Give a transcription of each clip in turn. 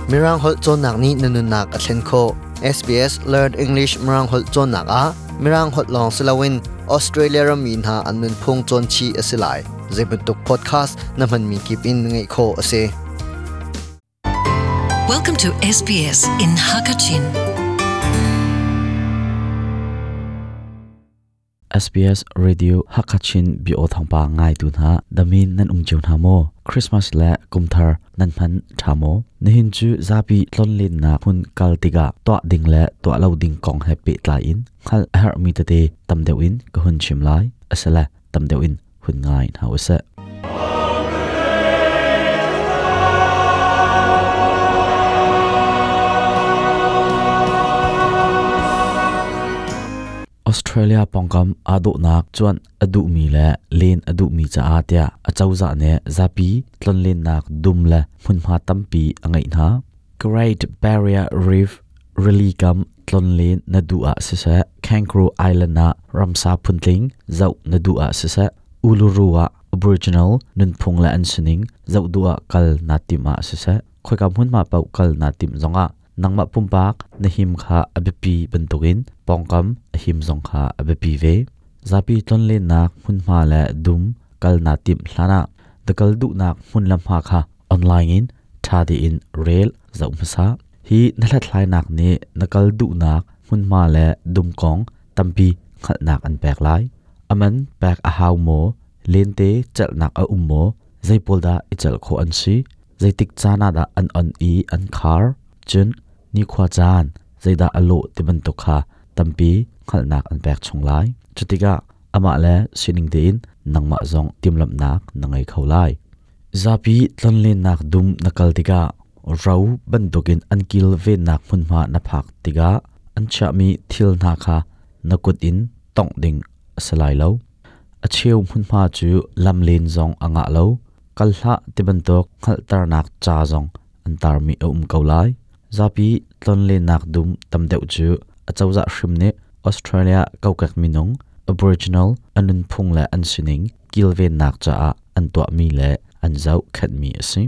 Mirang holh cawnnak nih na nunnak a thlen khawh. SBS Learn English Mirang holh cawnnak ah Mirang holh lawng si loin Australia rammi hna an nunphung cawn chih a si lai. Zeibantuk podcast na hmanmi kip in ngaih khawh a si. Welcome to SBS in Hakachin. SBS Radio Hakachin bio thawngpa ngaitu hna damin nan um cio hna maw? Christmas le kumthar nan hman tha maw? Nihin cu zapi tlonlennak hmun kal tikah tuah ding le tuah lo ding kong he pehtlai in hngalh a herhmi tete tam deuh in ka hun chim lai. Asile tam deuh in hun ngai hna usih. Australia pawngkam aa dawhnak cuanh a duhmi le len a duhmi caah tiah acozah nih zapi tlonlennak dum le hmunhma tampi a ngeih hna. Great Barrier Reef rili kam tlonlen na duh ah siseh, Kangaroo Island ah ramsa phuntling zoh na duh ah siseh, Uluru ah Aboriginal nunphung le an sining zoh duh ah kal naa timh ah siseh, khoika hmunhma paoh kal naa timh zongah nangmah pumpak na him kha a biapi bantukin pawngkam a him zong kha a biapi ve. Zapi tlonlennak hmunhma le dum kal naa timh hlanah na kal duhnak hmun le hma kha online in ṭha tein rel zoh hmasa. Hi na hlathlainak nih na kal duhnak hmunhma le dum kong tampi hngalhnak an pek lai. A man pek a hau maw? Lente celhnak a um maw? Zei pawl dah i celh khawh an si? Zeitik caan ah dah an on i an khar? Cun nikhua caan zeidah a lawh ti bantuk kha tampi hngalhnak an pek chung lai. Cutikah amah le sining tein nangmah zong timhlamhnak na ngei kho lai. Zapi tlonlennak dum na kal tikah ro bantukin an kilvennak hmunhma na phak tikah an chiahmi thil hna kha na kut in tongh ding a si lai lo. A cheu hmunhma cu lamlen zong a ngah lo. Kal hlah ti bantuk hngalhternak ca zong an tarmi a um ko lai. Zapi tlonlennak dum tam deuh cu acozah hrim nih Australia kokek minung Aboriginal an nunphung le an sining kilvennak caah an tuahmi le an zohkhenhmi a si.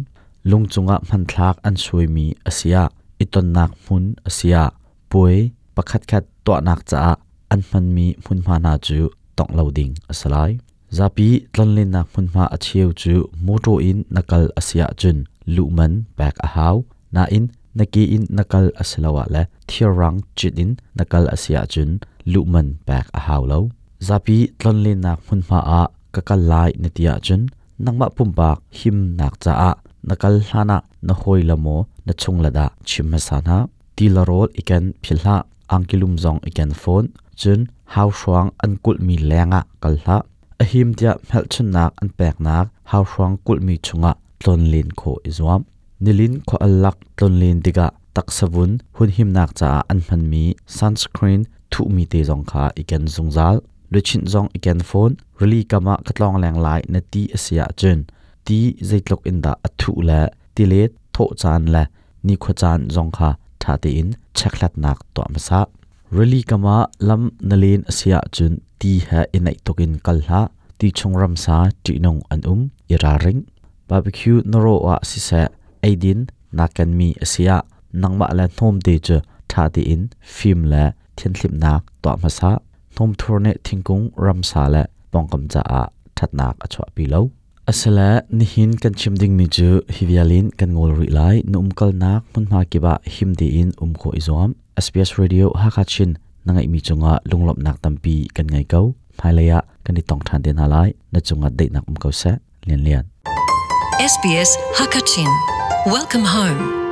Lung cungah hmanthlak an suaimi a si ah, i tonnak hmun a si ah, puai pakhatkhat tuahnak caah an hmanmi hmunhma hna cu tongh lo ding a si lai. Zapi tlonlennak hmunhma a cheu cu mawṭaw in na kal a si ahcun luhman pek a hau. Nain na ke in na kal a si lo ah le thirrang cit in na kal a si ahcun luhman pek a hau lo. Zapi tlonlennak hmunhma ah ka kal lai na ti ahcun nangmah pumpak himnak caah na kal hlan ah na hawile maw na chungle dah chim hmasa hna. Ti le rawl i ken philh hlah. Angkilum zong i ken fawn. Cun hauhruang an kulhmi lengah kal hlah. A him tiah hmelchunhnak an peknak hauhruang kulhmi chungah tlonlen khawh i zuam. Nilin khua al lak tlonlen tikah taksavun hunhimnak caah an hmanmi sunscreen thuhmi te zong kha i ken zungzal. Luchin zong i ken fawn. Rili kam ah ka tlawng leng lai na ti a si ahcun ti zeitluk in dah a thuh le tilet thawh caan le nikhua caan zong kha ṭha tein chekhlatnak tuah hmasa. Rili kam ah lam na len a si ahcun ti he i naih tuk in kal hlah. Ti chung ramsa ṭihnung an um, i ralring. Barbecue na rawh ah siseh, eidin naa kenmi a si ah nangmah le hnawmte cu ṭha tein fim le thianhhlimhnak tuah hmasa. Hnawmthur nih thingkung, ramsa le pawngkam caah ṭhatnak a chuahpi lo. Asile nihin kan chim dingmi cu hi vial in kan ngawl rih lai. Na umkalnak hmunhma kip ah him tein um khawh i zuam. SBS Radio Hakha Chin na ngeihmi cungah lunglawmhnak tampi kan ngei ko. Hmailei ah kan i tong ṭhan te hna lai. Na cungah daihnak um ko seh. Lian Lian. SBS Hakachin. Welcome home.